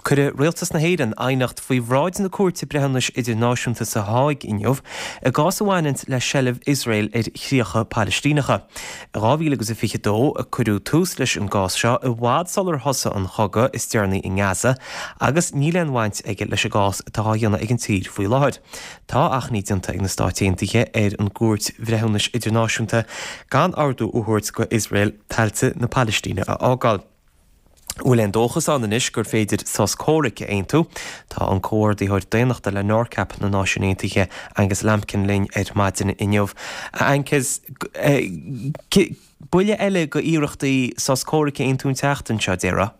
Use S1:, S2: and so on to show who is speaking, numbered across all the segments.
S1: Cuirfidh Rialtas na hÉireann aighneacht faoi bhráid na Cúirte Breithiúnais Idirnáisiúnta sa Háig inniu i gcás a bhaineanns le seilbh Iosrael ar chríocha Palaistíneacha. I 2022 a cuireadh tús leis an gcás seo, i bhfad sular thosaigh an chogadh is deireanaí i nGaza, agus níl aon bhaint aige leis an gcás atá á dhéanamh ag an tír faoi láthair. Tá achainí déanta ag na Stáit Aontaithe ar an gCúirt Bhreithiúnais Idirnáisiúnta gan ordú a thabhairt go Iosrael tailte na Palaistíne a fhágáil. Bhfuil aon dóchas ann anois gur féidir sos comhraic a aontú? Tá an Comhordaitheoir Daonnachta le NORCAP na Náisiún Aontaithe, Angus Lambkin linn ar maidin inniu. A Angus, buille eile go iarrachtaí sos comhraic a aontú an tseachtain seo, déarfá?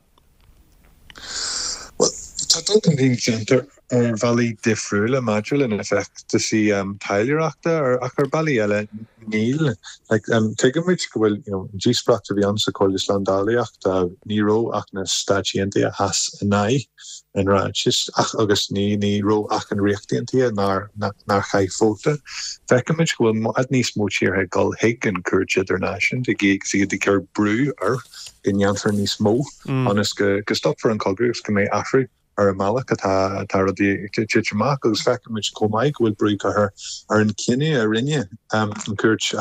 S2: Bhuel, tá dul chun cinn déanta ar bhealaí difriúla maidir le na feachtasaí taidhleoireachta ach ar bealaí eile níl. Tuigimid go bhfuil an díospóireacht a bhí ann sa Chomhairle Slándálaíochta, ní raibh ach na Stáit Aontaithe a sheas in aghaidh an ráitis ach agus ní ní raibh ach an Ríocht Aontaithe nár nár chaith vóta. Feicimid go bhfuil i bhfad níos mó tíortha ag dul chuig an Chúirt Idirnáisiúnta agus iad ag cur brú air go ndéanfar níos mó ionas go go stopfar an cogadh agus go mbeidh athrú ar an mbealach atá rudaí ag titim amach agus feicimid chomh maith go bhfuil brú curtha ar an chinneadh a rinne an Chúirt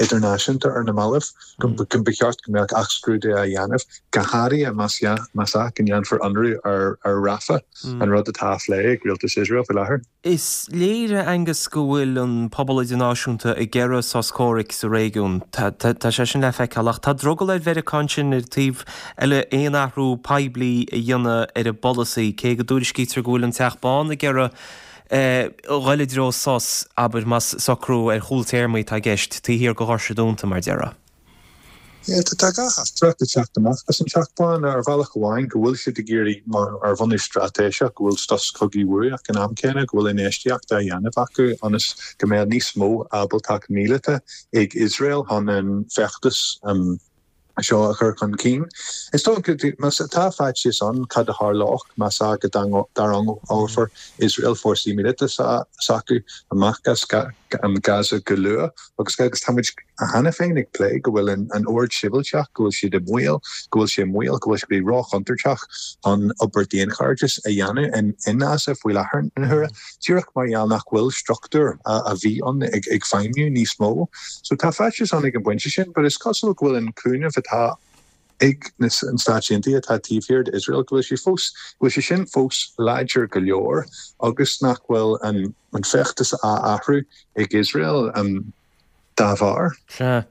S2: Idirnáisiúnta ar na mallaibh go mba cheart go mbeadh athscrúdú á dhéanamh, go háirithe más ea go ndéanfar ionradh ar Rafah, an rud atá á phlé ag rialtas Iosrael faoi láthair.
S1: Is léir, a Angus, go bhfuil an pobal idirnáisiúnta ag iarraidh sos comhraic sa réigiún. Tá sé sin le feiceáil. Ach tá drogall ar Mheiriceá ansin ar an taobh eile aon athrú poiblí a dhéanamh ar a bpolasaí, cé go dtuairiscítear go bhfuil an Teach Bán ag iarraidh dhul i dtreo sos, abair, más socrú ar chúl téarmaí atá i gceist, taobh thiar de dhoirse dúnta, mar déarfá.
S2: Tá gach teachtaireacht ag teacht amach as an Teach Bán ar bhealach amháin go bhfuil siad ag iarraidh, mar ar bhunús straitéiseach, go bhfuil sos cogaidh uathu ach ag an am céanna go bhfuil infheistíocht á dhéanamh acu ionas go mbeadh níos mó ábaltacht míleata ag Iosrael chun an feachtas seo a chur chun cinn. Is dócha, más tá faitíos ann cad a tharlódh más ea go dtarraingeofar Iosrael fórsaí míleata s'acu amach as Gaza go luath agus agus tá muid cheana féin ag plé go bhfuil an ord sibhialtach, go bhfuil siad i mbaol, go bhfuil sé i mbaol, go bhfuil sé róchontúirteach chun obair daonchairdis a dhéanamh in Gaza faoi láthair na huaire, díreach mar gheall nach bhfuil struchtúr a bhí ann ag feidhmiú níos mó. So tá faitíos ann ag an bpointe sin, but is cosúil go bhfuil an cúnamh atá ag na Stáit Aontaithe atá taobh thiar d'Iosrael, go bhfuil sé fós, go bhfuil sé sin fós láidir go leor agus nach bhfuil an feachtas á athrú ag Iosrael dá bharr.
S1: Sea.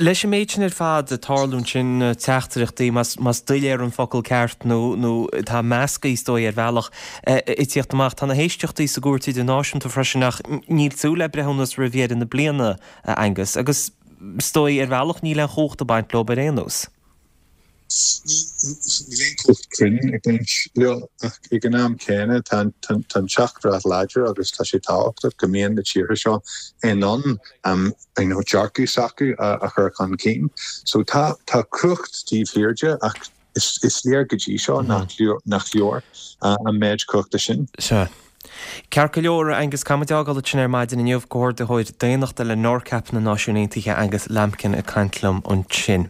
S1: Leis an méid sin ar fad ag tarlú ansin, teachtaireachtaí, más doiléir an focal ceart nó nó atá measctha is dóigh ar bhealach, ag tíocht amach. Tá na héisteachtaí sa gCúirt Idirnáisiúnta freisin ach níl súil le breithiúnas roimh dheireadh na bliana, a Angus. Agus is dóigh ar bhealach níl aon chumhacht ag baint leo ar aon nós.
S2: Níl aon chumhacht cruinn ag baint leo ach ag an am céanna tá an teachtaireacht láidir agus tá sé tábhachtach go mbíonn na tíortha seo in ann dearcadh s'acu a chur chun cinn. So tá cumhacht taobh thiar de ach is léir go dtí seo nach leor an méid cumhachta sin.
S1: Sea. Ceart go leor, Angus, caithfimid é a fhágáil ansin ar maidin inniu. Comhordaitheoir Daonnachta le NORCAP na Náisiún Aontaithe, Angus Lambkin ag caint liom ansin.